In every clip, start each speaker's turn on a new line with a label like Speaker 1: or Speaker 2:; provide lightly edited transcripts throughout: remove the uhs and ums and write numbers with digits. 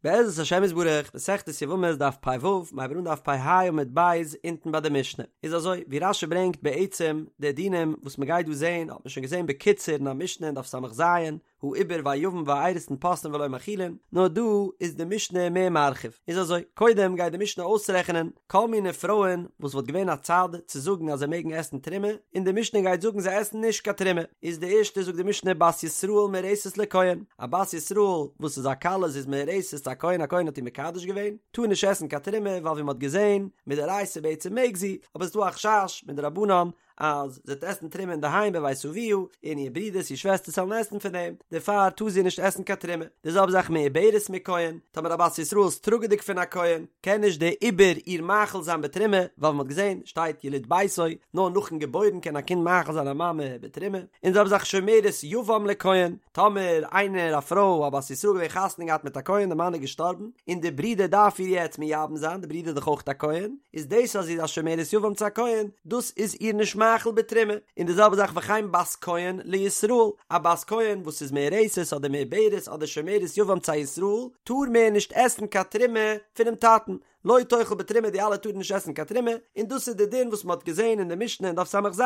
Speaker 1: בעזרת השם יתברך, מסכת יבמות דף פ ו, מ'הייבט אן דף פ ה עמוד ב', אונטן ביי די משנה. איז אזוי, ווי רשי ברענגט בעצם די דינים וואס מ'גייט דא זעהן האט מען שוין געזעהן בקיצור אין א משנה אין דף ס"ז, העובר והיבם והאירוסין פוסלין ולא מאכילין, נאר דא איז די משנה מער מרחיב. איז אזוי, קודם גייט די משנה אויסרעכענען כל מיני פרויען וואס וואלט געווען א צד צו זאגן אז זיי מעגן עסן תרומה, און די משנה גייט זאגן זיי עסן נישט קיין תרומה. איז די ערשטע זאגט די משנה בת ישראל מאורסת לכהן, א בת ישראל וואס איז א כלה זי איז מאורסת צו א כהן א כהן האט איר מקדש געווען, טאר נישט עסן קיין תרומה ווייל ווי מען האט געזען מדאורייתא בעצם מעג זי, אבער עס איז דא א חשש מדרבנן אז זי וועט עסן תרומה אינדערהיים בבית אביה, און איר ברידערס איר שוועסטערס וועלן עסן פון דעם, דערפאר טאר זי נישט עסן קיין תרומה. די זעלבע זאך מעוברת מכהן, טאמער א בת ישראל איז טראגעדיג פון א כהן, קען נישט דער עובר איר מאכיל זיין בתרומה, ווייל ווי מען האט געזען שטייט יליד ביתו, נאר נאכן געבוירן קען א קינד מאכיל זיין א מאמע בתרומה, און די זעלבע זאך שומרת יבם לכהן, טאמער איינער א פרוי א בת ישראל געווען חתונה געהאט מיט א כהן די מאן איז געשטארבן, און די ברודער דארף איר יעצט מייבם זיין, די ברודער איז דאך אויך א כהן, איז דאס אז זי איז א שומרת יבם צו א כהן, דאס איז איר נישט מאכיל בתרומה, און די זעלבע זאך וכן בת כהן לישראל, א בת כהן וואס איז מאורסת אדער מעוברת אדער שומרת יבם צו א ישראל, טאר מער נישט עסן קיין תרומה פונעם טאטן, לא תאכל בתרומה די אלע טארן נישט עסן קיין תרומה, און דאס איז די דין וואס מען האט געזען אין די משנה אין דף ס"ז,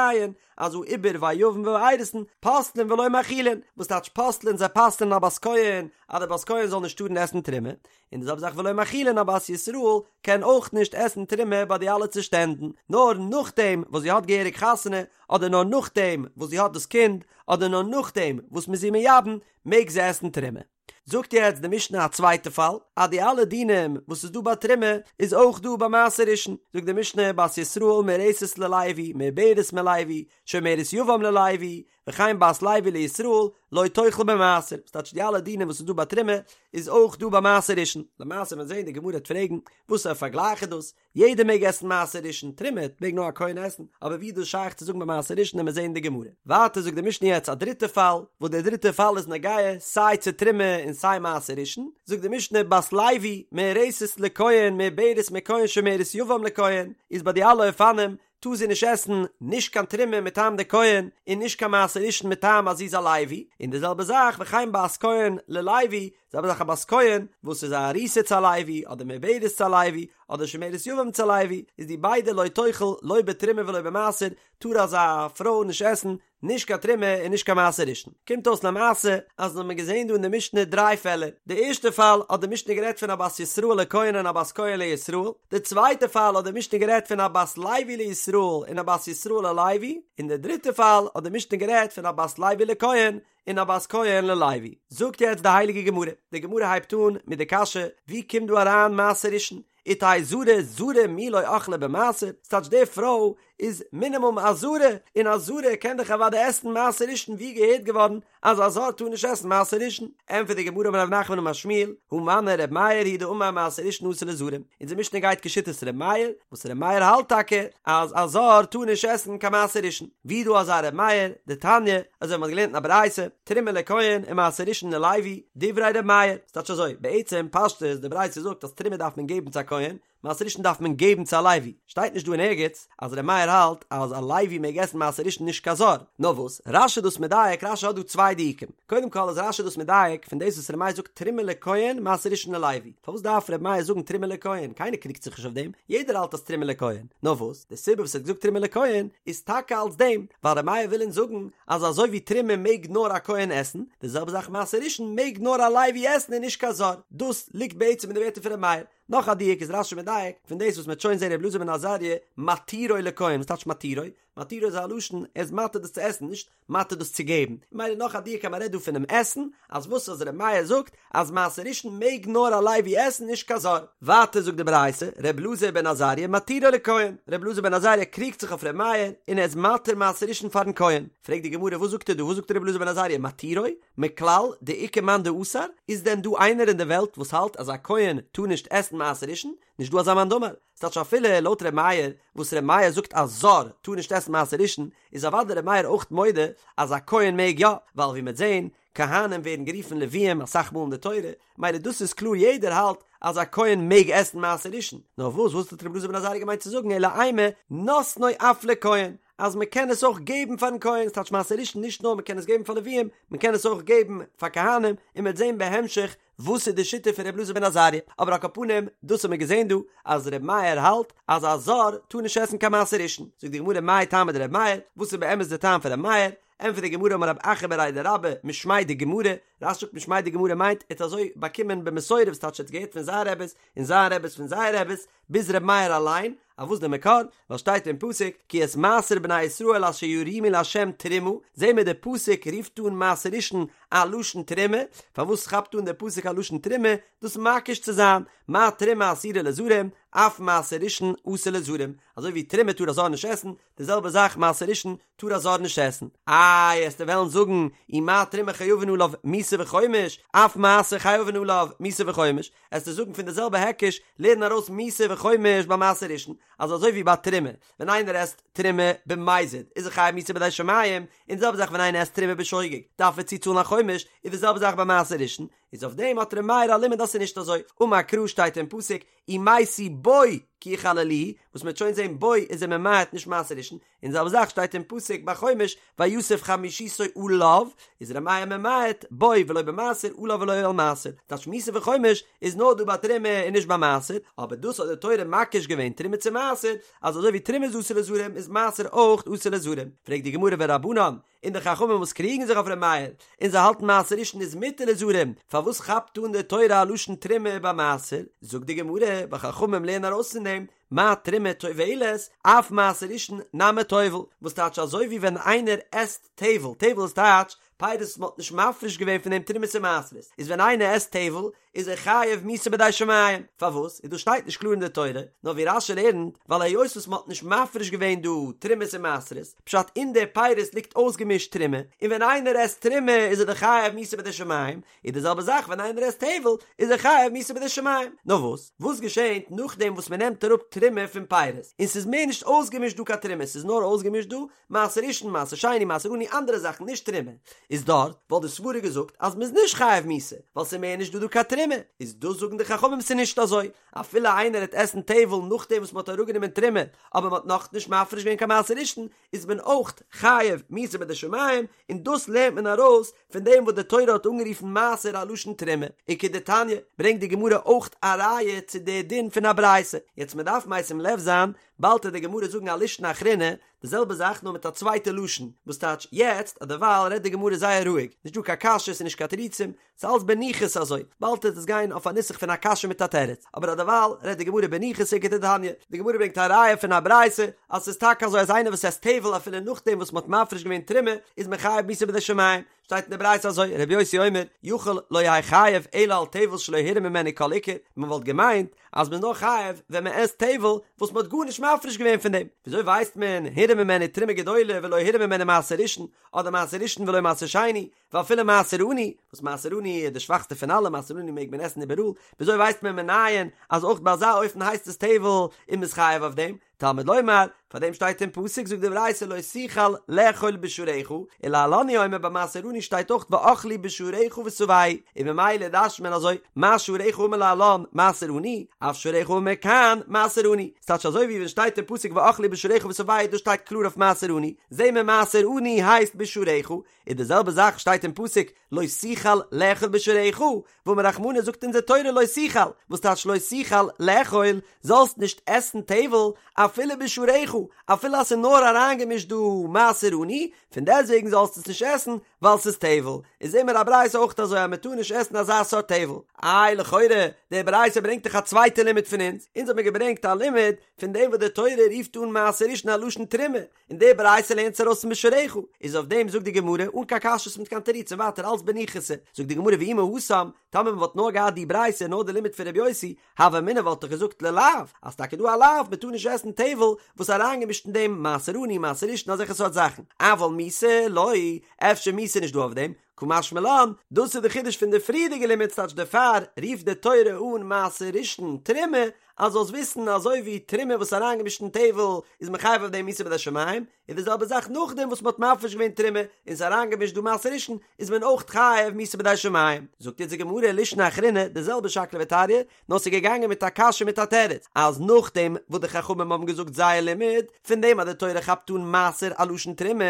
Speaker 1: אז העובר והיבם והאירוסין פוסלין ולא מאכילין, וואס טייטש פוסלין זיי פסל'ן א בת כהן אז די בת כהן זאל נישט טארן עסן תרומה, און די זעלבע זאך ולא מאכילין א בת ישראל קען אויך נישט עסן תרומה ביי די אלע צושטענדן, נאר נאכדעם וואס זי האט געהעריג חתונה, אדער נאר נאכדעם וואס זי האט דאס קינד, אדער נאר נאכדעם וואס מ'איז איר מייבם, מעג זי עסן תרומה. זאגט יעצט די משנה א צווייטע פאל, אז די אלע דינים וואס איז דא ביי תרומה איז אויך דא ביי מעשר ראשון, זאגט די משנה בת ישראל מאורסת ללוי, מעוברת מלוי, שומרת יבם ללוי, וכן בת לוי לישראל, לא תאכל במעשר, ס'טייטש די אלע דינים וואס איז דא ביי תרומה איז אויך דא ביי מעשר ראשון, למעשה ווען זעהן די גמרא וועט פרעגן וואס א פארגלייך איז דאס, יעדער מעג עסן מעשר ראשון, תרומה מעג נאר א כהן עסן, אבער ווי איז דאס שייך צו זאגן ביי מעשר ראשון וועלן מיר זעהן די גמרא. ווייטער זאגט די משנה יעצט א דריטע פאל, וואס דער דריטע פאל איז נוגע סיי צו תרומה און סיי מעשר ראשון, זאגט די משנה בת לוי מאורסת לכהן מעוברת מכהן שומרת יבם לכהן, איז ביי די אלע אופנים טאר זי נישט עסן נישט קיין תרומה מטעם די כהן און נישט קיין מעשר ראשון מטעם אז זי איז א לוי, און די זעלבע זאך וכן בת כהן ללוי, זעלבע זאך א בת כהן וואס איז א ארוסה צו א לוי אדער מעוברת צו א לוי אדער שומרת יבם צו א לוי, איז די ביידע לא תאכל לא בתרומה ולא במעשר, טאר אזא פרוי נישט עסן נישט קיין תרומה און נישט קיין מעשר ראשון. קומט אויס למעשה אז מ'האט געזען דא אין די משנה דריי פעלער. די ערשטע פאל האט די משנה גערעדט פון א בת ישראל לכהן און א בת כהן לישראל. די צווייטע פאל האט די משנה גערעדט פון א בת לוי לישראל און א בת ישראל ללוי. און די דריטע פאל האט די משנה גערעדט פון א בת לוי לכהן און א בת כהן ללוי. זאגט יעצט די הייליגע גמרא. די גמרא הייבט אן מיט די קשיא, ווי קומט דא אריין מעשר ראשון? ותהא זרה זרה מי לא אכלה במעשר, ס'טייטש די פרוי איז מינימום א זרה, און א זרה קען דאך אוודאי עסן מעשר ראשון ווי געהערט געווארן אז א זר טאר נישט עסן מעשר ראשון, ענטפערט די גמרא אמר רב נחמן אמר שמואל, הא מני ר' מאיר היא דאמר מעשר ראשון אסור לזרים, אונזער משנה גייט כשיטת ר' מאיר, וואס ר' מאיר האלט טאקע אז א זר טאר נישט עסן קיין מעשר ראשון, ווי דא אזא ר' מאיר, דתניא, אזוי ווי מ'האט געלערנט אין א ברייתא, תרומה לכהן ומעשר ראשון ללוי, דברי ר' מאיר, ס'טייטש אזוי, בעצם פשטות די ברייתא זאגט אז תרומה דארף מען געבן צו א כהן, מעשר ראשון דארף מען געבן צו א לוי, שטייט נישט דא אין ערגעץ אז ר' מאיר האלט אז א לוי מעג עסן מעשר ראשון נישט קיין זר, נאר וואס, רש"י איז דאס מדייק, רש"י האט דא צוויי דיוקים, קודם כל איז רש"י דאס מדייק פון דאס וואס ר' מאיר זאגט תרומה לכהן מעשר ראשון ללוי, פארוואס דארף ר' מאיר זאגן תרומה לכהן, קיינער קריגט זיך נישט אויף דעם, יעדער האלט אז תרומה לכהן, נאר וואס, די סיבה וואס ער האט געזאגט תרומה לכהן איז טאקע אלס דעם, ווייל ר' מאיר וויל אונז זאגן אז אזוי ווי תרומה מעג נאר א כהן עסן, די זעלבע זאך מעשר ראשון מעג נאר א לוי עסן און נישט קיין זר, דאס ליגט בעצם אין די ווערטער פון ר' מאיר. נאך א דיוק איז רש"י מדייק פון דאס וואס מ'העט שוין זען ר' אלעזר בן עזריה מתירו לכהן, וואס טייטש מתירו? מתירו איז א לשון ער איז מתיר דאס צו עסן, נישט מתיר דאס צו געבן, ממילא נאך א דיוק אז מ'רעדט דא פונעם עסן, אז וואס אז ר' מאיר זאגט אז מעשר ראשון מעג נאר א לוי עסן נישט קיין זר. ווייטער זאגט די ברייתא, ר' אלעזר בן עזריה מתירו לכהן, ר' אלעזר בן עזריה קריגט זיך אויף ר' מאיר און ער איז מתיר מעשר ראשון פארן כהן, פרעגט די גמרא וואס זאגט ער דא וואס זאגט ר' אלעזר בן עזריה מתירו? מכלל דאיכא מאן דאסר? איז דען דא איינער אין די וועלט וואס האלט אז א כהן טאר נישט עסן מעשר ראשון? נישט דא אזא מאן דאמר, ס'טייטש אפילו לויט ר' מאיר וואס ר' מאיר זאגט א זר טאר נישט עסן מעשר ראשון, איז אוודאי ר' מאיר אויך מודה אז א כהן מעג יא, ווייל ווי מ'עט זעהן, כהנים ווערן גערופן לוויים אסאך מאל אין די תורה, מילא דאס איז קלאר יעדער האלט אז א כהן מעג עסן מעשר ראשון, נאר וואס וואס האט ר' אלעזר בן עזריה געמיינט צו זאגן אלא אימא נותנו אף לכהן, אז מען קען עס אויך געבן פארן כהן, ס'טייטש מעשר ראשון נישט נאר מען קען עס געבן פאר לוויים, מען קען עס אויך געבן פאר כהנים, און מ'עט זעהן בהמשך. וואס איז די שיטה פון ר' אלעזר בן עזריה, אבער על כל פנים דאס האט מען געזען דא אז ר' מאיר האלט אז א זר טאר נישט עסן קיין מעשר ראשון, זאגט די גמרא מאי טעמא דר' מאיר, וואס איז באמת די טעם פון ר' מאיר, ענטפערט די גמרא אמר רב אחא בריה דרבה משמיה דגמרא, רש"י זאגט משמיה דגמרא מיינט ער האט אזוי באקומען במסורה וואס טייטש ער האט געהערט פון זיין רעבעס און זיין רעבעס פון זייער רעבעס ביז ר' מאיר אליין, אויף וואס די מקור? ווייל שטייט אין פסוק כי את מעשר בני ישראל אשר ירימו לה' תרומה, זעהן מיר די פסוק רופט אן מעשר ראשון א לשון תרומה, פארוואס כאפט אן די פסוק א לשון תרומה? דאס מקיש צו זיין, מה תרומה אסורה לזרים, אף מעשר ראשון אסור לזרים, אזוי ווי תרומה טאר א זר נישט עסן, די זעלבע זאך מעשר ראשון טאר א זר נישט עסן. איי, עסטו וועלן זאגן, אי מה תרומה חייבין עליו מיתה וחומש, אף מעשר חייבין עליו מיתה וחומש, עסטו זאגן פון די זעלבע היקש, לערן ארויס מיתה וחומש ביי מעשר ראשון, אז אזוי ווי ביי תרומה, ווען איינער עסט תרומה במזיד איז ער חייב מיתה בידי שמים, און די זעלבע זאך ווען איינער עסט תרומה בשוגג דארף ער צוצאלן א חומש, איז די זעלבע זאך ביי מעשר ראשון, איז אויף דעם האט ר' מאיר א לימוד אז ס'איז נישט אזוי, אמר קרא שטייט אין פסוק, ומתו בו כי יחללוהו, וואס מ'וועט שוין זען בו איז ער ממעט נישט מעשר ראשון, און די זעלבע זאך שטייט אין פסוק ביי חומש ויסף חמישיתו עליו, איז ר' מאיר ממעט בו ולא במעשר עליו ולא על מעשר, טייטש מיתה וחומש איז נאר דא ביי תרומה און נישט ביי מעשר, אבער דאס האט די תורה מקיש געווען תרומה צו מעשר, אז אזוי ווי תרומה איז אסור לזרים איז מעשר אויך אסור לזרים, פרעגט די גמרא ורבנן, און די חכמים וואס קריגן זיך אויף ר' מאיר, און זיי האלטן מעשר ראשון איז מותר לזרים, פארוואס כאפט אן די תורה א לשון תרומה ביי מעשר? זאגט די גמרא, ווייל חכמים לערנען ארויס פון דעם, מה תרומה טובלת, אף מעשר ראשון נמי טובל, וואס טייטש אזוי ווי ווען איינער עסט טבל, טבל איז טייטש פירות וואס מען האט נישט מפריש געווען פון דעם תרומות און מעשרות, איז ווען איינער עסט טבל איז ער חייב מיתה בידי שמים, פארוואס? איז דאס שטייט נישט קלאר אין די תורה, נאר ווי רש"י לערנט, ווייל היות וואס מען האט נישט מפריש געווען דא תרומות און מעשרות, פשט אין די פירות ליגט אויסגעמישט תרומה, און ווען איינער עסט תרומה איז ער דאך חייב מיתה בידי שמים, איז די זעלבע זאך ווען איינער עסט טבל איז ער חייב מיתה בידי שמים. נאר וואס? וואס געשענט נאכדעם וואס מען נעמט אראפ תרומה פון פירות, און ס'איז מער נישט אויסגעמישט דא קיין תרומה, ס'איז נאר אויסגעמישט דא מעשר ראשון, מעשר שני, מעשר עני, אנדערע זאכן, נישט תרומה, איז דארט וואלט די סברה געזאגט אז מ'איז נישט חייב מיתה, ווייל ס'איז מער נישט דא דא קיין תרומה, איז דאס זאגן די חכמים ס'איז נישט אזוי, אפילו איינער העט עסן טבל נאכדעם וואס מ'האט אראפגענומען תרומה, אבער מ'האט נאכנישט מפריש געווען קיין מעשר ראשון, איז מען אויך חייב מיתה בידי שמים, און דאס לערנט מען ארויס פון דעם וואס די תורה האט אנגערופן מעשר א לשון תרומה, וכדתניא, ברענגט די גמרא אויך א ראיה צו די דין פון א ברייתא, יעצט מ'דארף משים לב זיין, באלד העט די גמרא זאגן א לישנא אחרינא, די זעלבע זאך נאר מיט א צווייטע לשון, וואס טייטש יעצט אז דערווייל רעדט די גמרא זייער רואיג, נישט דא קיין קשיות און נישט קיין תירוצים, ס'איז אלס בניחותא אזוי, באלד וועט עס גיין אויף א נוסח פון א קשיא מיט א תירוץ, אבער אז דערווייל רעדט די גמרא בניחותא וכדתניא, די גמרא ברענגט א ראיה פון א ברייתא אז ס'איז טאקע אזוי אז איינער וואס עסט טבל אפילו נאכדעם וואס מ'האט מפריש געווען תרומה איז מען חייב מיתה בידי שמים, שטייט אין די ברייתא אזוי, רבי יוסי אומר, יכול לא יהא חייב אלא על טבל שלא הורם ממנו כל עיקר, מען וואלט געמיינט אז מען איז נאר חייב ווען מען עסט טבל וואס מען האט גארנישט מפריש געווען פון דעם, וויאזוי ווייסט מען הורם ממנו תרומה גדולה ולא הורם ממנו מעשר ראשון, אדער מעשר ראשון ולא מעשר שני, ואפילו מעשר עני, וואס מעשר עני איז די שוואכסטע פון אלע, מעשר עני מעג מען עסן איבעראל, וויאזוי ווייסט מען מנין אז אויך ביי אזא אופן הייסט עס טבל און מען איז חייב אויף דעם? תלמוד לומר, פאר דעם שטייט אין פסוק זאגט די ברייתא לא תוכל לאכול בשעריך, ולהלן הוא אומר ביי מעשר עני שטייט אויך ואכלו בשעריך ושבעו, און ממילא דרש'נט מען אזוי, מה שעריך האמור להלן מעשר עני, אף שעריך האמור כאן מעשר עני, ס'טייטש אזוי ווי ווען שטייט אין פסוק ואכלו בשעריך ושבעו דאס שטייט קלאר אויף מעשר עני, זעהן מיר מעשר עני הייסט בשעריך, און די זעלבע זאך שטייט אין פסוק לא תוכל לאכול בשעריך, ואמר רחמנא זאגט אונזער תורה לא תוכל, וואס טייטש לא תוכל לאכול, זאלסט נישט עסן טבל אפילו בשעריך, אפילו אז ס'איז נאר אריינגעמישט דא מעשר עני, פון דעסטוועגן זאלסטו עס נישט עסן ווייל ס'איז טבל, איז זעהן מיר א ברייתא אויך אזוי אז מ'טאר נישט עסן אזא סארט טבל. איי לכאורה, די ברייתא ברענגט דאך א צווייטע לימוד פון אונז, אונז האט מען געברענגט א לימוד פון דעם וואס די תורה רופט אן מעשר ראשון א לשון תרומה, און די ברייתא לערנט עס ארויס פון בשעריך, איז אויף דעם זאגט די גמרא אן קיין קשיות מיט קיין תירוצים ווייטער אלץ בניחותא, זאגט די גמרא ואי מהתם, טאמער מען וואלט נאר געהאט די ברייתא נאר די לימוד פון רבי יוסי, הוה אמינא וואלט איך געזאגט ללאו, אז טאקע דא א לאו מען טאר נישט עסן טבל וואס אריינגעמישט אין דעם מעשר עני מעשר ראשון אזעלכע סארט זאכן, אבל מיתה לא, אפשר מיתה נישט דא אויף דעם, קא משמע לן, דאס איז די חידוש פון די פריערדיגע לימוד ס'טייטש דערפאר רופט די תורה אן מעשר ראשון תרומה, אז זאלסט וויסן אזוי ווי תרומה וואס איז אריינגעמישט אין טבל איז מען חייב אויף דעם מיתה בידי שמים, איז די זעלבע זאך נאכדעם וואס מ'האט מפריש געווען תרומה און ס'איז אריינגעמישט דא מעשר ראשון איז מען אויך חייב מיתה בידי שמים. זאגט יעצט די גמרא לישנא אחרינא די זעלבע שקלא וטריא, נאר ס'איז געגאנגען מיט א קשיא מיט א תירוץ, אז נאכדעם וואס די חכמים האבן געזאגט זייער לימוד, פון דעם אז די תורה כאפט אן מעשר א לשון תרומה,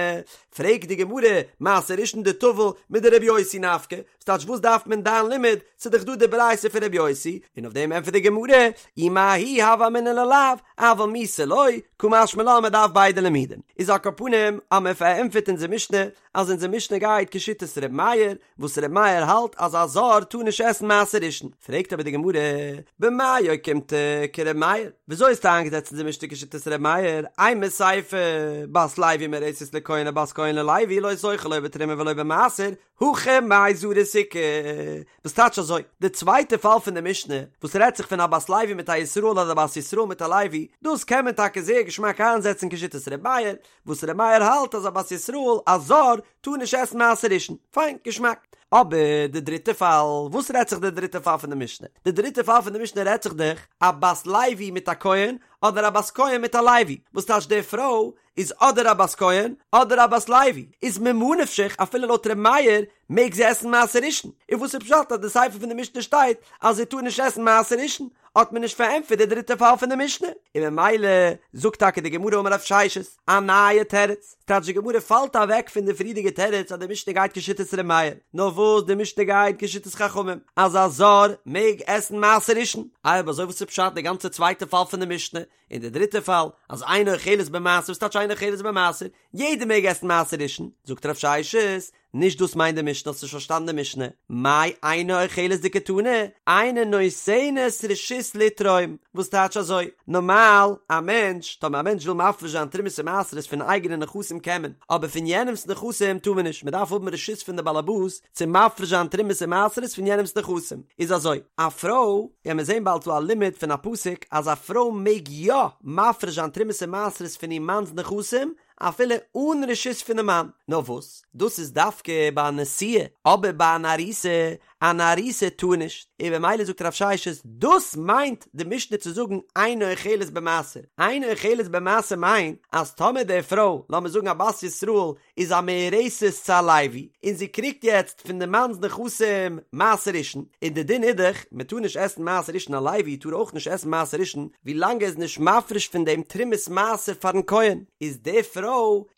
Speaker 1: פרעגט די גמרא, מעשר ראשון דטביל. מדרבי יוסי נפקא, ס'טייטש וואס דארף מען דיין לימוד, ס'איז דאך דא די ברייתא פון רבי יוסי, און אויף דעם ענטפערט די גמרא, אי מההיא הוה אמינא ללאו, אבל מיתה לא, קא משמע לן מ'דארף ביידע לימודים. איז על כל פנים אז מען פארענטפערט אונזער משנה אז אונזער משנה גייט כשיטת ר' מאיר, וואס ר' מאיר האלט אז א זר טאר נישט עסן מעשר ראשון, פרעגט אבער די גמרא, במאי אוקימתא כר' מאיר, וויאזוי האסטו איינגעזעצט אונזער משנה כשיטת ר' מאיר, אימא סיפא, בת לוי מאורסת לכהן או בת כהן ללוי לא תאכל לא בתרומה ולא במעשר, הכא מאי זרות איכא, וואס טייטש אזוי? די צווייטע פאל פון די משנה, וואס רעדט זיך פון א בת לוי מיט א ישראל אדער א בת ישראל מיט א לוי, דאס קען מען טאקע זייער געשמאק איינזעצן כשיטת ר' מאיר, וואס ר' מאיר האלט אז א בת ישראל, א זר, טאר נישט עסן מעשר ראשון. פיין, געשמאק. אבער די דריטע פאל, וואס רעדט זיך די דריטע פאל פון די משנה? די דריטע פאל פון די משנה רעדט זיך דאך א בת לוי מיט א כהן, אדער א בת כהן מיט א לוי, וואס טייטש די פרוי איז אדער א בת כהן אדער א בת לוי, איז ממה נפשך אפילו לויט ר' מאיר מעג זי עסן מעשר ראשון, און וואס איז פשט אז די סיפא פון די משנה שטייט אז זי טאר נישט עסן מעשר ראשון, האט מען נישט פארענטפערט די דריטע פאל פון די משנה, און ממילא זאגט טאקע די גמרא אמר רב ששת א נייע תירוץ, טייטש די גמרא פאלט אוועק פון די פריערדיגע תירוץ אז די משנה גייט כשיטת ר' מאיר, נאר וואס די משנה גייט כשיטת חכמים אז א זר מעג עסן מעשר ראשון, איי אויב אזוי וואס איז פשט די גאנצע צווייטע פאל פון די משנה, און די דריטע פאל, אז אינה אוכלת במעשר, וואס טייטש אינה אוכלת במעשר? יעדער מעג עסן מעשר ראשון, זאגט רב ששת, נישט דאס מיינט די משנה, האסט נישט פארשטאנען די משנה, מאי אינה אוכלת דקתני, אינה נותנת רשות לתרום, וואס טייטש אזוי? נארמאל, א מענטש, טאמער א מענטש וויל מפריש זיין תרומות און מעשרות פון אייגענע נכסים קען מען, אבער פון יענעמ'ס נכסים טאר מען נישט, מען דארף האבן רשות פון די באלעבאס צו מפריש זיין תרומות און מעשרות פון יענעמ'ס נכסים, איז אזוי, א פרוי, וועלן מיר זען באלד דא א לימוד פון א פסוק אז א פרוי מעג יא מפריש זיין תרומות און מעשרות פון איר מאנ'ס נכסים אפילו אן רשות פונעם מאן, נאר וואס, דאס איז דווקא ביי א נשואה, אבער ביי אן ארוסה, אן ארוסה טאר נישט, און במילא זאגט רב ששת, דאס מיינט די משנה צו זאגן אינה אוכלת במעשר, אינה אוכלת במעשר מיינט אז טאמער די פרוי, לאמיר זאגן א בת ישראל, איז א מאורסת צו א לוי, און זי קריגט יעצט פון די מאנ'ס נכסים מעשר ראשון, און די דין איז דאך, מען טאר נישט עסן מעשר ראשון א לוי טאר אויך נישט עסן מעשר ראשון ווי לאנג ער איז נישט מפריש פון דעם תרומת מעשר פארן כהן, איז די פרוי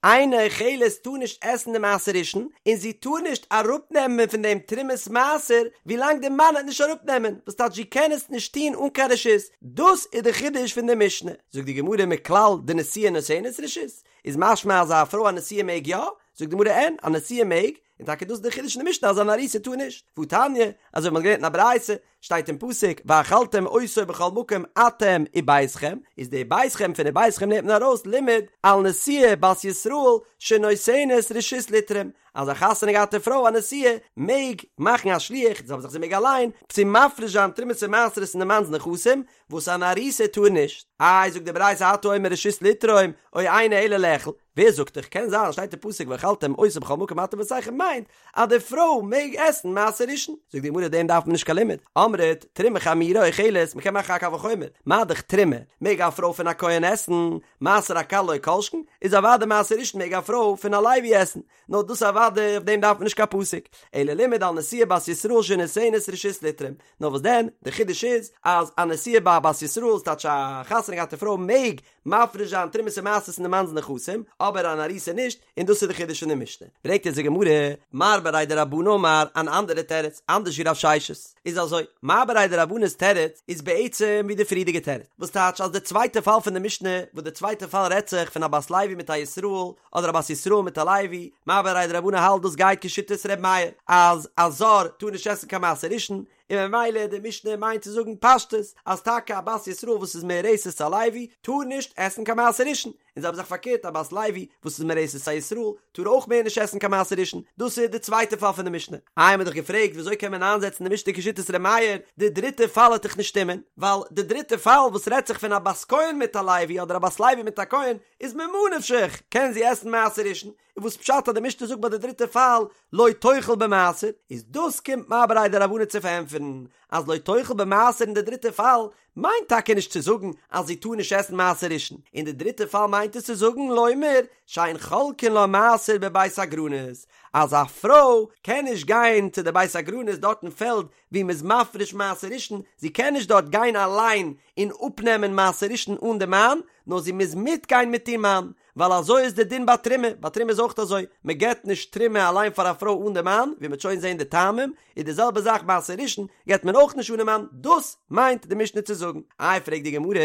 Speaker 1: אינה אוכלת טאר נישט עסן די מעשר ראשון, און זי טאר נישט אראפנעמען פון דעם תרומת מעשר ווי לאנג די מאן וועט נישט אראפנעמען, וואס טייטש זי קען עס נישט טון אן קיין רשות, דאס איז די חידוש פון די משנה, זאגט די גמרא מכלל דנשואה נותנת רשות, איז משמע אז א פרוי א נשואה מעג יא? זאגט די גמרא אין, א נשואה מעג, און טאקע דאס איז די חידוש אין די משנה אז אן ארוסה טאר נישט, והתניא, אזוי ווי מ'האט געלערנט אין א ברייתא, שטייט אין פסוק ואכלתם אותו בכל מקום אתם וביתכם, איז די ביתכם פון וביתכם לערנט מען ארויס לימד על נשואה בת ישראל שנותנת רשות לתרום, אז א חתונה געהאטע פרוי א נשואה מעג מאכן א שליח, זעלבע זאך זי מעג אליין, צו מפריש זיין תרומות און מעשרות אין די מאנ'ס נכסים, וואס אן ארוסה טאר נישט. איי זאגט די ברייתא אתה אומר רשות לתרום או אינו אלא לאכול, ווער זאגט דיך, קען זיין אז שטייט אין פסוק ואכלתם אותו בכל מקום אתם וביתכם מיינט אז די פרוי מעג עסן מעשר ראשון, זאגט די גמרא דעם דארף מען נישט קיין לימוד, אמרת תרומה חמורה אוכלת, מען קען מאכן א קל וחומר, מה דאך תרומה מעג א פרוי פון א כהן עסן, מעשר הקל לא כל שכן, איז אוודאי מעשר ראשון מעג א פרוי פון א לוי עסן, נאר דאס אוודאי אויף דעם דארף מען נישט קיין פסוק, אלא לימד על נשואה בת ישראל שנותנת רשות לתרום, נאר וואס דען, די חידוש איז אז א נשואה ביי א בת ישראל, ס'טייטש א חתונה געהאטע פרוי מעג מפריש זיין תרומות און מעשרות אין די מאנ'ס נכסים, אבער אן ארוסה נישט, און דאס איז די חידוש פון די משנה. ברענגט אונז די גמרא, מר בריה דרבנא אמר, אן אנדערע תירוץ, אנדערש ווי רב ששת, איז אזוי, מר בריה דרבנא'ס תירוץ איז בעצם ווי די פריערדיגע תירוץ, וואס טייטש אז די צווייטע פאל פון די משנה, וואס די צווייטע פאל רעדט זיך פון א בת לוי מיט א ישראל, אדער א בת ישראל מיט א לוי, מר בריה דרבנא האלט דאס גייט כשיטת ר' מאיר, אז א זר טאר נישט עסן קיין מעשר ראשון, און ממילא די משנה מיינט צו זאגן פשטות אז טאקע א בת ישראל וואס איז מאורסת צו א לוי טאר נישט עסן קיין מעשר ראשון, און זעלבע זאך פארקערט א בת לוי וואס איז מאורסת צו א ישראל טאר אויך מער נישט עסן קיין מעשר ראשון, דאס איז די צווייטע פאל פון די משנה. איי מ'האט דאך געפרעגט וויאזוי קען מען איינזעצן די משנה כשיטת ר' מאיר, די דריטע פאל וועט דאך נישט שטימען, ווייל די דריטע פאל וואס רעדט זיך פון א בת כהן מיט א לוי אדער א בת לוי מיט א כהן איז ממה נפשך קען זי עסן מעשר ראשון, און וואס פשט אז די משנה זאגט ביי די דריטע פאל לא תאכל במעשר, איז דאס קומט מר בריה דרבנא צו פארענטפערן אז לא תאכל במעשר אין די דריטע פאל מיינט טאקע נישט צו זאגן אז זי טאר נישט עסן מעשר ראשון, אין די דריטע פאל מיינט עס צו זאגן לומר שאין חולקין לה מעשר בבית הגרנות, אז א פרוי קען נישט גיין צו די בית הגרנות דארט אין פעלד ווי מ'איז מפריש מעשר ראשון, זי קען נישט דארט גיין אליין און אפנעמען מעשר ראשון אן די מאן, נאר זי מוז מיטגיין מיט איר מאן, ווייל אזוי איז די דין ביי תרומה, ביי תרומה איז אויך אזוי, מען געבט נישט תרומה אליין פאר א פרוי אן די מאן, ווי מען וועט שוין זען די טעמים, איז די זעלבע זאך מעשר ראשון געבט מען אויך נישט אן די מאן, דאס מיינט די משנה צו זאגן. איי פרעגט די גמרא,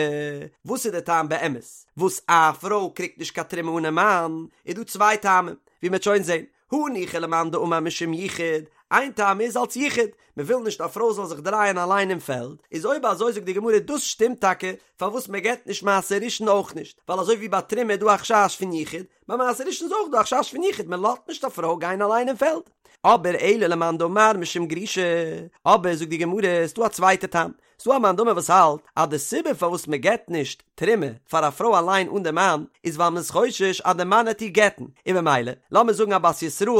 Speaker 1: וואס איז די טעם באמת וואס א פרוי קריגט נישט קיין תרומה אן די מאן, איז דא צוויי טעמים, ווי מען וועט שוין זען, הניחא למאן דאמר משום יחוד, איין טעם איז אלס יחוד, מען וויל נישט א פרוי זאל זיך דרייען אליין אין פעלד, איז אויב אזוי זאגט די גמרא דאס שטימט טאקע פארוואס מען געבט נישט מעשר ראשון אויך נישט, ווייל אזוי ווי ביי תרומה איז דא א חשש פון יחוד, ביי מעשר ראשון איז אויך דא א חשש פון יחוד, מען לאזט נישט א פרוי גיין אליין אין פעלד. אבער אלא למאן דאמר משום גרושה, אבער זאגט די גמרא ס'דא א צווייטע טעם, ס'דא א מאן דאמר וואס האלט אז די סיבה פארוואס מען געבט נישט תרומה פאר א פרוי אליין אן די מאן איז ווייל מען איז חושש אז די מאן העט איר גט'ן, און במילא לאמיר זאגן א בת ישראל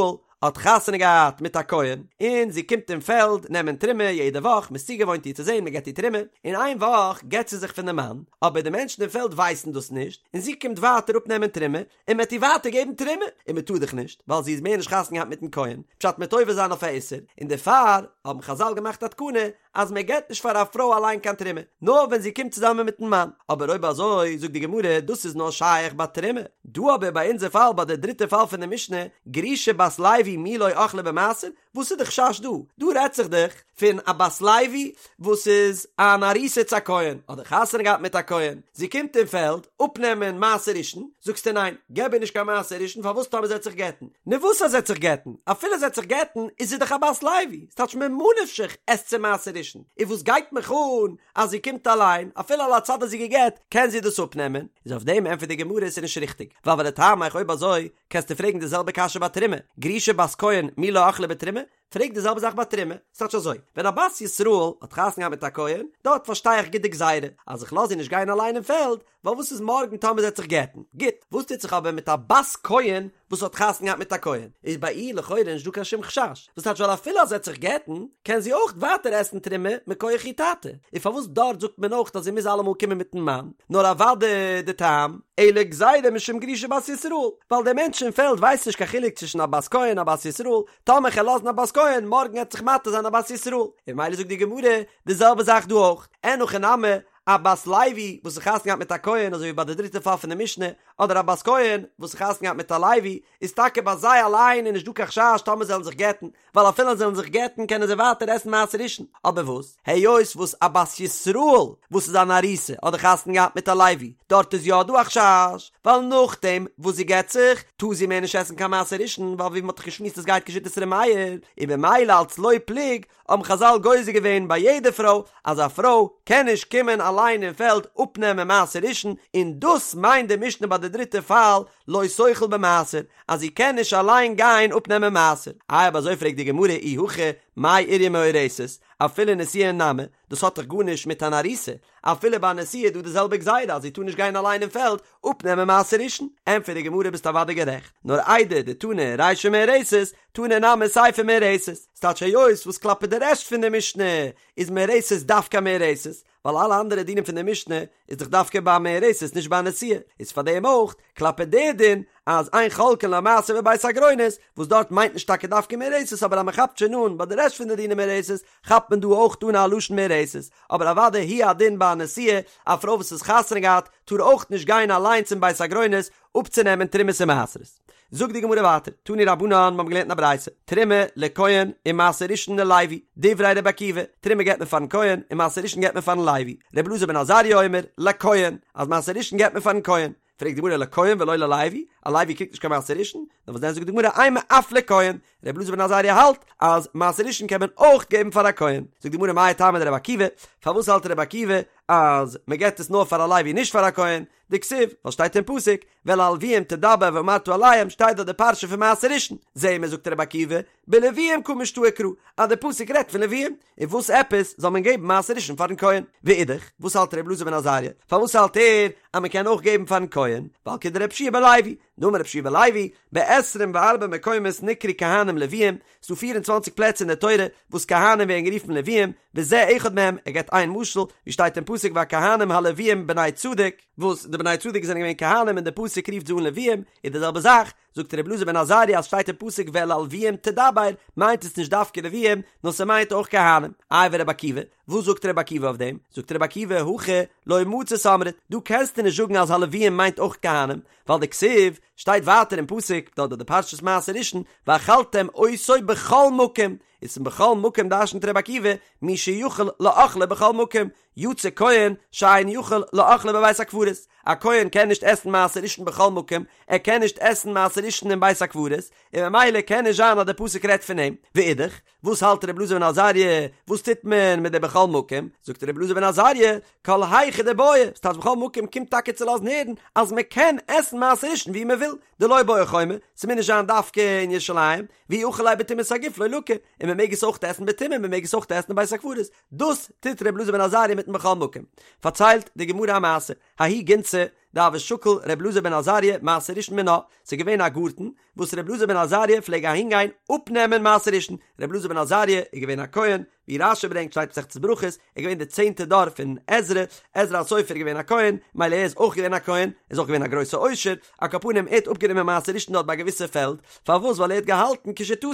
Speaker 1: האט חתונה געהאט מיט א כהן און זי קומט אין פעלד נעמען תרומה יעדע וואך, מען איז צוגעוואוינט איר צו זען מען געבט איר תרומה, און איין וואך גט זי זיך פון די מאן, אבער די מענטשן אין פעלד ווייסן דאס נישט, און זי קומט ווייטער אפנעמען תרומה, און מען וועט איר ווייטער געבן תרומה, און מען טאר דאך נישט, ווייל זי איז מער נישט חתונה געהאט מיטן כהן, פשט מ'וועט עובר זיין אויף א איסור, און דערפאר האבן חזל געמאכט א תקנה אז מען געבט נישט פאר א פרוי אליין קיין תרומה, נאר ווען זי קומט צוזאמען מיטן מאן, אבער אויב אזוי זאגט די גמרא דאס איז נאר שייך ביי תרומה, דא אבער ביי אונזער פאל ביי די דריטע פאל פון די משנה, גרושה בת לוי מי לא אכלה במעשר, וואס איז די חשש דא? דא רעדט זיך דאך פון א בת לוי וואס איז אן ארוסה צו א כהן, אדער חתונה געהאט מיט א כהן, זי קומט אין פעלד אפנעמען מעשר ראשון, זאגסטו ניין, געב איר נישט קיין מעשר ראשון פארוואס טאמער זי וועט זיך גט'ן? נו וואס אז זי וועט זיך גט'ן? אפילו זי וועט זיך גט'ן איז זי דאך א בת לוי, ס'טייטש ממה נפשך עסט זי מעשר ראשון, און וואס גייט מיך אן אז זי קומט אליין, אפילו על הצד אז זי גע'גט קען זי דאס אפנעמען, איז אויף דעם ענטפערט די גמרא עס איז נישט ריכטיג, ווייל ולטעמיך אויב אזוי קענסטו פרעגן די זעלבע קשיא ביי תרומה, גרושה בת כהן מי לא אכלה בתרומה? פרעג די זעלבע זאך ביי תרומה, ס'טייטש אזוי, ווען א בת ישראל האט חתונה געהאט מיט א כהן, דארט פארשטיי איך גוט די גזירה, אז איך לאז איר נישט גיין אליין אין פעלד, ווייל וואס איז מארגן טאמער זי וועט זיך גט'ן? גוט, וואס טוט זיך אבער מיט א בת כהן וואס האט חתונה געהאט מיט א כהן? איז ביי איר לכאורה נישט דא קיין שום חשש, וואס טייטש ווייל אפילו אז זי וועט זיך גט'ן, קען זי אויך ווייטער עסן תרומה מכח איר טאטע, און פארוואס דארט זאגט מען אויך אז זי מוז אלעמאל קומען מיט'ן מאן? נאר אוודאי די טעם, אלא גזירה משום גרושה בת ישראל, ווייל דער מענטש אין פעלד ווייסט נישט קיין חילוק צווישן א בת כהן און א בת ישראל, טאמער כ'על לאזן א בת כהן, מארגן עט זיך מתיר זיין א בת ישראל, און ממילא זאגט די גמרא די זעלבע זאך דא אויך, אין הכי נמי, א בת לוי וואס איז חתונה געהאט מיט א כהן אזוי ווי ביי די דריטע פאל פון די משנה, אדער א בת כהן וואס איז חתונה געהאט מיט א לוי, איז טאקע ביי זיי אליין איז נישט דא קיין חשש טאמער זיי וועלן זיך גט'ן, ווייל אפילו זיי וועלן זיך גט'ן קענען זיי ווייטער עסן מעשר ראשון, אבער וואס, היות וואס א בת ישראל וואס איז אן ארוסה אדער חתונה געהאט מיט א לוי, דארט איז יא דא א חשש, ווייל נאכדעם וואס זי גט זיך, טאר זי מער נישט עסן קיין מעשר ראשון, ווייל ווי מען האט דאך געשמועסט עס גייט כשיטת ר' מאיר, און במילא אלץ לא פלוג, האבן חזל גוזר געווען ביי יעדע פרוי אז א פרוי קען נישט קומען אליין אין פעלד אפנעמען מעשר ראשון, און דאס מיינט די משנה ביי די דריטע פאל לא תאכל במעשר אז זי קען נישט אליין גיין אפנעמען מעשר. איי אויב אזוי פרעגט די גמרא אי הכי מאי איריא מאורסת אפילו נשואה נמי, דאס האט דאך גארנישט מיט אן ארוסה, אפילו ביי א נשואה איז דא די זעלבע גזירה אז זי טאר נישט גיין אליין אין פעלד אפנעמען מעשר ראשון, ענטפערט די גמרא ביסט אוודאי גערעכט, נאר איידי דתנא רישא מאורסת, תנא נמי סיפא מאורסת, ס'טייטש היות וואס כלפי די רעשט פון די משנה איז מאורסת דווקא מאורסת, ווייל אלע אנדערע דינים פון די משנה איז דאך דווקא ביי מאורסת נישט ביי נשואה, איז פאר דעם אויך כלפי די דין אז אין חולקין לה מעשר בבית הגרונות, וואס דארט מיינט נישט טאקע דווקא מאורסת אבער אז מ'כאפט שוין אן ביי די רעשט פון די דינים מאורסת כאפט מען דא אויך אן א לשון מאורסת, אבער אוודאי הוא הדין ביי א נשואה, א פרוי וואס איז חתונה געהאט טאר אויך נישט גיין אליין צום בית הגרונות אפצונעמען תרומות און מעשרות. זאגט די גמרא ווייטער, תנו רבנן, מיר האבן געלערנט אין א ברייתא, תרומה לכהן ומעשר ראשון ללוי, דברי רבי עקיבא, תרומה געבט מען פארן כהן און מעשר ראשון געבט מען פארן לוי, רבי אלעזר בן עזריה אומר, לכהן, אז מעשר ראשון געבט מען פארן כהן, פרעגט די גמרא לכהן ולא ללוי, א לוי קריגט נישט קיין מעשר ראשון, נאר וואס דען זאגט די גמרא אימא אף לכהן, רבי אלעזר בן עזריה האלט אז מעשר ראשון קען מען אויך געבן פאר א כהן, זאגט די גמרא מאי טעמא דרבי עקיבא, פארוואס האלט רבי עקיבא אז מען געבט עס נאר פאר א לוי נישט פאר א כהן, דכתיב, ווייל שטייט אין פסוק, ואל הלוים תדבר ואמרת אליהם שטייט דארט די פרשה פון מעשר ראשון, זעהן מיר זאגט רבי עקיבא, בלוים קא משתעי קרא, אז די פסוק רעדט פון לוים, און וואס עפעס זאל מען געבן מעשר ראשון פארן כהן? ואידך, וואס האלט רבי אלעזר בן עזריה? פארוואס האלט ער אז מען קען אויך געבן פארן כהן? ווייל כדרבי יהושע בן לוי, דאמר רבי יהושע בן לוי, בעשרים וארבע מקומות נקראו כהנים לוויים, ס'דא פיר און צוואנציג פלעצער אין די תורה וואס כהנים ווערן גערופן לוויים, וזה אחד מהם, ער געבט איין משל, ווי שטייט אין פסוק והכהנים הלוויים בני צדוק, וואס די בני צדוק זענען געווען כהנים און די פסוק רופט זיי אן לוויים, איז די זעלבע זאך, זאגט רבי אלעזר בן עזריה אז שטייט אין פסוק ואל הלוויים תדבר, מיינט עס נישט דווקא לוויים, נאר ס'מיינט אויך כהנים. איי ורבי עקיבא, וואס זאגט רבי עקיבא אויף דעם? זאגט רבי עקיבא הכא לא מצית אמרת, דא קענסטו נישט זאגן אז הלוויים מיינט אויך כהנים, ווייל דכתיב, שטייט ווייטער אין פסוק, דארט ביי די פרשת מעשר ראשון, ואכלתם אותו בכל מקום, איז פון בכל מקום דרשנ'ט רבי עקיבא, מי שיכול לאכלו בכל מקום, יצא כהן שאין יכול לאכלו בבית הקברות, א כהן קען נישט עסן מעשר ראשון בכל מקום, ער קען נישט עסן מעשר ראשון אין בית הקברות, און ממילא קען נישט זיין אז דער פסוק רעדט פון אים, ואידך, וואס האלט רבי אלעזר בן עזריה, וואס טוט מען מיט די בכל מקום, זאגט רבי אלעזר בן עזריה, כל היכא דבעי, ס'טייטש בכל מקום קומט טאקע צו לאזן הערן אז מען קען עסן מעשר ראשון ווי מען וויל, דלא בעי חומה, ס'מוז נישט זיין דווקא אין ירושלים, ואי אכיל ליה בטומאת הגוף לא לקי, און מען מעג עס אויך עסן בטומאה, מען מעג עס אויך עסן אין בית הקברות, דאס טוט ר' אלעזר בן עזריה מיטן בכל מקום. פארציילט די גמרא א מעשה, ההיא גינתא דהוה שקיל ר' אלעזר בן עזריה מעשר ראשון מינה, ס'איז געווען א גארטן וואס ר' אלעזר בן עזריה פלעג אהינגיין אפנעמען מעשר ראשון, ר' אלעזר בן עזריה איז געווען א כהן, ווי רש"י ברענגט שטייט מסכת ברכות, ער איז געווען די צענטע דור פון עזרא, עזרא הסופר איז געווען א כהן, מילא ער איז אויך געווען א כהן, ער איז אויך געווען א גרויסע עושר, על כל פנים ער האט אפגענומען מעשר ראשון דארט ביי א געוויסע פעלד, פארוואס ווייל ער האט געהאלטן כשיטתו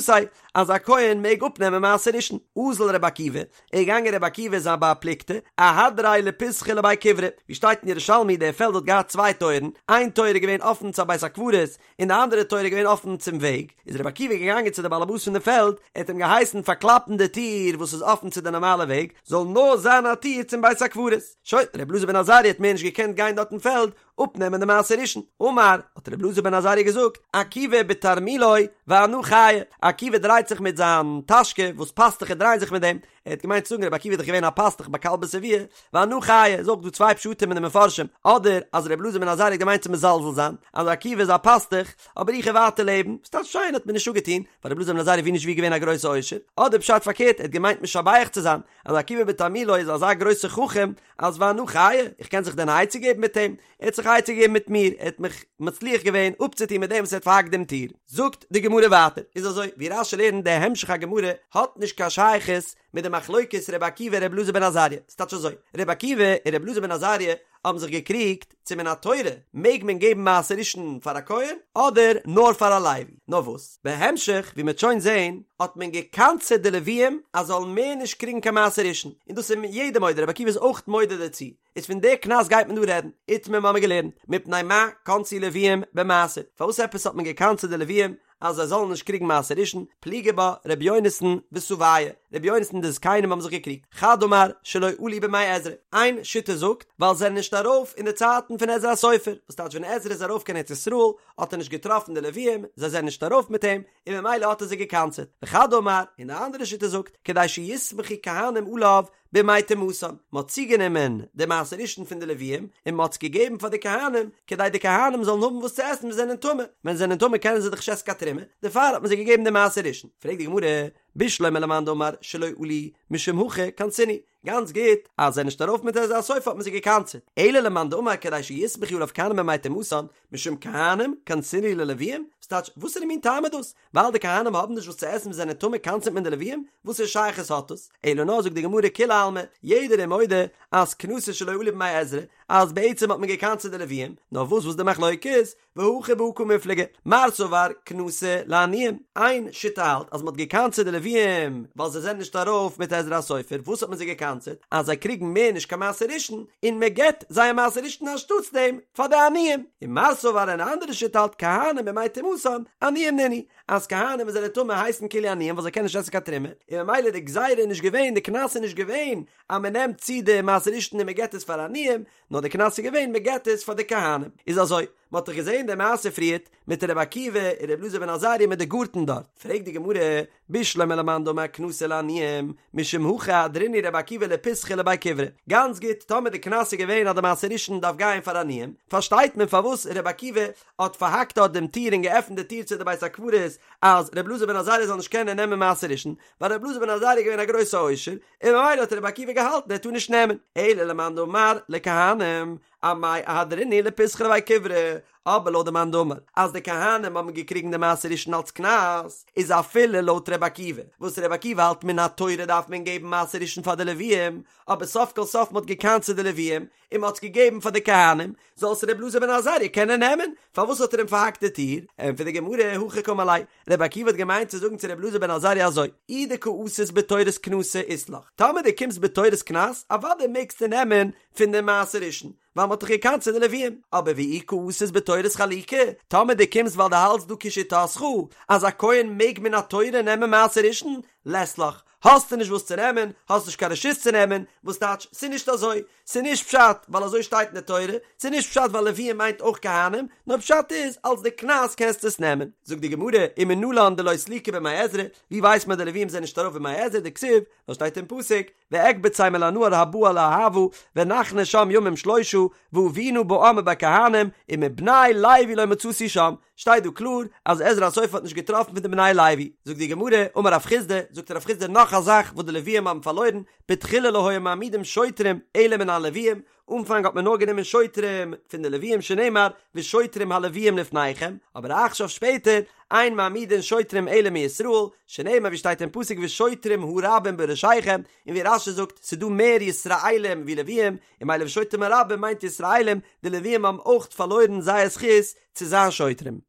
Speaker 1: אז א כהן מעג אפנעמען מעשר ראשון, אזל רבי עקיבא, איז געגאנגען רבי עקיבא זיין בר פלוגתא, אהדריה לפיתחא לבי כברה, ווי שטייט אין ירושלמי דער פעלד האט געהאט צוויי טויערן, איין טויער איז געווען אפן צו א בית הקברות, און די אנדערע טויער איז געווען אפן צום וועג, איז רבי עקיבא געגאנגען צו די באלעבאס פון די פעלד, ער האט אים געהייסן פארקלאפן די טיר וואס איז אפן צו די נארמאלע וועג, זאל נאר זיין א טיר צום בית הקברות. שוין, רבי אלעזר בן עזריה האט מער נישט געקענט גיין דארט אין פעלד אפנעמען די מעשר ראשון. אמר, האט רבי אלעזר בן עזריה געזאגט, עקיבא בתרמולו ואנא חיי, עקיבא דרייט זיך מיט זיין טאשקע וואס פאסטוכער דרייען זיך מיט דעם, ער האט געמיינט צו זאגן רבי עקיבא איז דאך געווען א פאסטוך ביי כלבא שבוע, ואנא חיי, איז אויך דא צוויי פשטים אין די מפרשים, אדער אז רבי אלעזר בן עזריה האט געמיינט צו מזלזל זיין, אז עקיבא איז א פאסטוך, אבער איך וועל ווייטער לעבן, ס'טייטש שיין האט מיר נישט אפגעטון, ווייל רבי אלעזר בן עזריה ווי נישט ווי געווען א גרויסע עושר, אדער פשט פארקערט ער האט געמיינט משבח צו זיין, אז עקיבא בתרמולו איז אזא גרויסע חכם, אז ואנא חיי, איך קען זיך דען א עצה געבן מיט אים? ער האט זיך א עצה געגעבן מיט מיר, ער האט מיך מצליח געווען אפצוטון מיט דעם וואס ער האט פארהאקט דעם טיר. זאגט די גמרא ווייטער, איז אזוי, ווי רש"י לערנט די המשך הגמרא האט נישט קיין שייכות מיט די מחלוקת ר' עקיבא ר' אלעזר בן עזריה, ס'טייטש אזוי, ר' עקיבא און ר' אלעזר בן עזריה האבן זיך געקריגט צו מן התורה מעג מען געבן מעשר ראשון פאר א כהן אדער נאר פאר א לוי, נאר וואס בהמשך ווי מ'וועט שוין זען האט מען גע'קנס'עט די לוויים אז זאלן מער נישט קריגן קיין מעשר ראשון, און דאס איז יעדער מודה, ר' עקיבא איז אויך מודה דערצו, איז פון די קנס גייט מען דא רעדן, איתמר מ'האמיר געלערנט, מפני מה קנסו לוויים במעשר, פארוואס עפעס האט מען גע'קנס'עט די לוויים אז זיי זאלן נישט קריגן מעשר ראשון, פליגי בה ר' יונתן וסבייא, ר' יונתן און די זקנים האבן זיך געקריגט, חד אמר שלא עלו בימי עזרא, איין שיטה זאגט ווייל זיי זענען נישט ארויף אין די צייטן פון עזרא הסופר, וואס טייטש ווען עזרא איז ארויף קיין ארץ ישראל האט ער נישט געטראפן די לוויים, זיי זענען נישט ארויף מיט אים, און ממילא האט ער זיי גע'קנס'עט, וחד אמר, און די אנדערע שיטה זאגט, כדי שיסמכו כהנים עליו בימי טומאתן, מען האט צוגענומען די מעשר ראשון פון די לוויים און מען האט עס געגעבן פאר די כהנים, כדי די כהנים זאלן האבן וואס צו עסן ווען זיי זענען טמא, ווען זיי זענען טמא קענען זיי דאך נישט עסן קיין תרומה, דערפאר האט מען זיי געגעבן די מעשר ראשון. פרעגט די גמרא, בשלמא למאן דאמר שלא עלו משום הכי קנסינהו, גאנץ גוט, אז זיי זענען נישט ארויף מיט עזרא הסופר האט מען זיי געקנס'עט, אלא למאן דאמר כדי שיסמכו עליו כהנים בימי טומאתן, משום כהנים קנסינהו ללוויים, ס'טייטש, וואסערע מין טעם איז דאס? ווייל די כהנים האבן נישט וואס צו עסן ווען זיי זענען טמא קנס'עט מען די לוויים? וואסערע שייכות האט דאס? אלא נאר זאגט די גמרא כולי עלמא, יעדער איז מודה אז קנסא שלא עלו בימי עזרא, אז בעצם האט מען געקנס'עט די לוויים, נאר וואס וואס די מחלוקת איז, והכא בהא קמיפלגי, מר סבר קנסא לעניים, איין שיטה האלט אז מען האט געקנס'עט די לוויים ווייל זיי זענען נישט ארויף מיט עזרא הסופר, וואס האט מען זיי געקנס'עט? אז זיי קריגן מער נישט קיין מעשר ראשון, און מען געבט זייער מעשר ראשון אנשטאטס דעם פאר די עניים, און מר סבר אן אנדערע שיטה האלט כהנים בימי טומאתן עניים נינהו, אז כהנים וואס זענען טמא הייסן כאילו עניים ווייל זיי קענען נישט עסן קיין תרומה, און ממילא די גזירה איז נישט געווען, די קנס איז נישט געווען אז מען נעמט צו די מעשר ראשון און מען געבט עס פאר עניים, נאר די קנס איז געווען מען געבט עס פאר די כהנים. איז אזוי, מען האט דאך געזען די מעשה פריערט מיט רבי עקיבא און רבי אלעזר בן עזריה מיט די גארטן דארט, פרעגט די גמרא, בשלמא למאן דאמר קנסא לעניים, משום הכי אהדרינהו רבי עקיבא לפיתחא לבי כברה, גאנץ גוט, טאמער די קנס איז געווען אז די מעשר ראשון דארף גיין פאר עניים, פארשטייט מען פארוואס רבי עקיבא האט פארהאקט דארט דעם טיר און געעפנט די טיר צו די בית הקברות אז רבי אלעזר בן עזריה זאל נישט קענען נעמען מעשר ראשון, ווייל רבי אלעזר בן עזריה איז געווען א גרויסע עושר, און ממילא האט רבי עקיבא געהאלטן ער טאר נישט נעמען, אלא למאן דאמר לכהנים. אמאי אהדרינהו לפיתחא לבי כברה, אבער לויט די מאן דאמר אז די כהנים האבן געקריגן די מעשר ראשון אלץ קנס, איז אפילו לויט ר' עקיבא, וואס ר' עקיבא האלט מן התורה דארף מען געבן מעשר ראשון פאר די לוויים, אבער סוף כל סוף מען האט געקנס'עט די לוויים, און מען האט עס געגעבן פאר די כהנים, זאל עס ר' אלעזר בן עזריה קענען נעמען, פארוואס האט ער אים פארהאקט די טיר? ענטפערט די גמרא, הכי קאמר ליה, ר' עקיבא האט געמיינט צו זאגן צו ר' אלעזר בן עזריה אזוי, אי דקא אתית בתורת קנסא אית לך, טאמער דו קומסט בתורת קנס, אוודאי מעגסטו נעמען פון די מעשר ראשון, ווייל מ'האט דאך געקנס'עט די לוויים, אבער ואי קאתית בתורת חלוקה, טאמער דו קומסט ווייל דו האלטסט דא כשיטתך אז א כהן מעג מן התורה נעמען מעשר ראשון, לית לך, האסטו נישט וואס צו נעמען, האסט נישט קיין רשות צו נעמען, וואס טייטש, ס'איז נישט אזוי, ס'איז נישט פשט ווייל אזוי שטייט אין די תורה, ס'איז נישט פשט ווייל לוויים מיינט אויך כהנים, נאר פשט איז אלס די קנס קענסטו עס נעמען. זאגט די גמרא, ומנלן דלא סליקו בימי עזרא, ווי ווייסט מען די לוויים זענען נישט ארויף בימי עזרא, דכתיב, ווייל שטייט אין פסוק, ואקבצם אל הנהר הבא אל אהוא ונחנה שם ימים שלושה ואבינה בעם ובכהנים ומבני לוי לא מצאתי שם, שטייט דא קלאר אז עזרא הסופר האט נישט געטראפן פון די בני לוי, זאגט די גמרא, אמר רב חסדא, זאגט רב חסדא נאך א זאך וואס די לוויים האבן פארלוירן, בתחילה לא היו מעמידים שוטרים אלא מן הלוויים, אנפאנג האט מען נאר גענומען שוטרים פון די לוויים שנאמר ושוטרים הלוויים לפניכם, אבער עכשיו שפעטער אין מעמידין שוטרים אלא מישראל, שנאמר ווי שטייט אין פסוק ושוטרים הרבים בראשיכם, און ווי רש"י זאגט ס'איז דא מער ישראלים ווי לוויים, און ממילא ושוטרים הרבים מיינט ישראלים, די לוויים האבן אויך פארלוירן זייער זכות צו זיין שוטרים.